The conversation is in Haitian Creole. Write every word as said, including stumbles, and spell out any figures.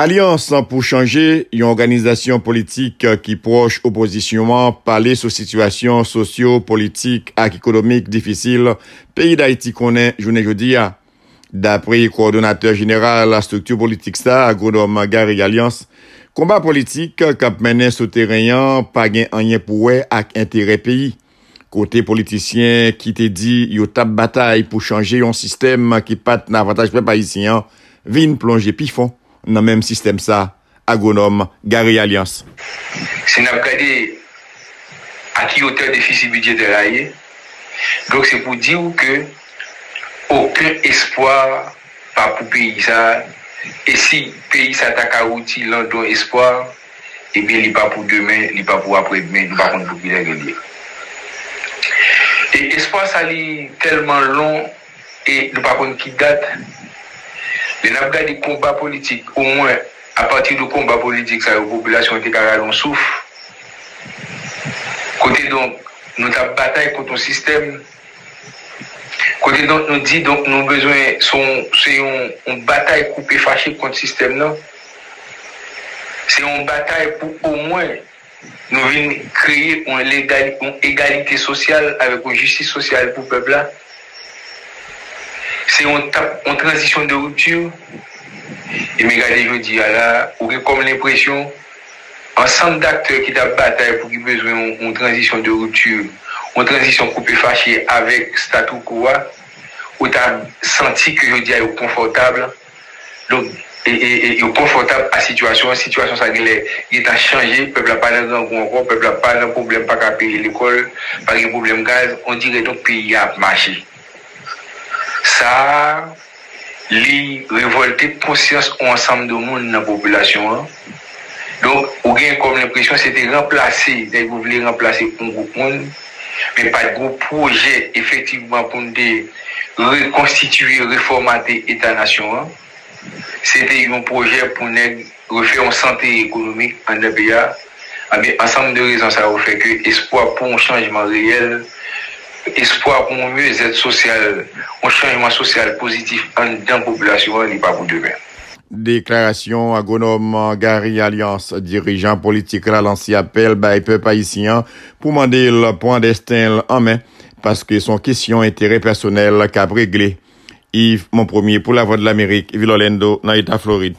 Alyans pou Chanje, yon òganizasyon politik ki pwòch opozisyon an, pale sou sitiyasyon sosyo-politik ak ekonomik difisil peyi Dayiti konnen jounen jodi a. Dapre kowòdonatè jeneral estrikti politik sa, agwonòm Gary Alliance, konba politik k ap mennen sou teren an pa gen anyen pou wè ak enterè peyi. Kote politisyen ki te di yo t ap batay pou chanje yon sistèm ki pa t nan avantaj pèp ayisyen an vin plonje pi fon nan menm sistèm sa, agwonòm Gary Alliance. Si n ap gade a ki wotè defisi bidjetè la ye, donk se pou di w ke okenn espwa pa pou peyi sa. E si peyi sa ta ka wouti landon espwa, ebyen li pa pou demen, li pa pou aprèdemen, nou pa konn pou kilè ke l ye. E espwa sa li tèlman lon e nou pa konn ki dat. Lè n ap gade konba politik, omwen apati de konba politik sa yo, popilasyon an te ka rale yon souf. Kote donk nou t ap batay kont yon sistèm, kote donk nou di donk nou bezwen se yon, se yon, yon batay koupe fache kont sistèm nan. Se yon batay pou omwen nou vin kreye yon, legal, yon egalite sosyal avèk yon jistis sosyal pou pèp la. Se yon, yon tranzisyon de ripti. E men gade jodi a la, ou gen kòm lenpresyon ansanm daktè ki t ap batay pou ki bezwen yon, yon tranzisyon de ripti, yon tranzisyon koupe fache avèk statu quo a, ou ta santi ke jodi a yo konfòtab. Donk, e, e, e, yo konfòtab a sitiyasyon an. Sitiyasyon sa genlè gentan chanje. Pèp la pa nan grangou ankò. Pèp la pa nan pwoblèm pa ka peye lekòl, pa gen pwoblèm gaz. On dirè donk peyi a ap mache. Sa a, li revòlte konsyans yon ansanm de moun nan popilasyon an. Donk, ou gen kòm lenpresyon se te ranplase, nèg yo vle ranplase yon gwoup moun, men pa t gen yon pwojè efektivman pou n te rekonstitiye, refòmate eta nasyon an. Se te yon pwojè pou nèg refè yon sante ekonomik anndan peyi a. Anben, ansanm de rezon sa yo fè ke espwa pou yon chanjman reyèl, espwa pou yon myezèt sosyal, yon chanjman sosyal pozitif anndan popilasyon an, li pa pou demen. Deklarasyon agwonòm Gary Alliance, dirijan politik la, lanse apèl bay pèp ayisyen an pou mande l pran desten l an men, paske se yon kesyon enterè pèsonèl k ap regle. Yves Monpremier pou Lavwadlamerik, vil Orlando, nan eta Florid.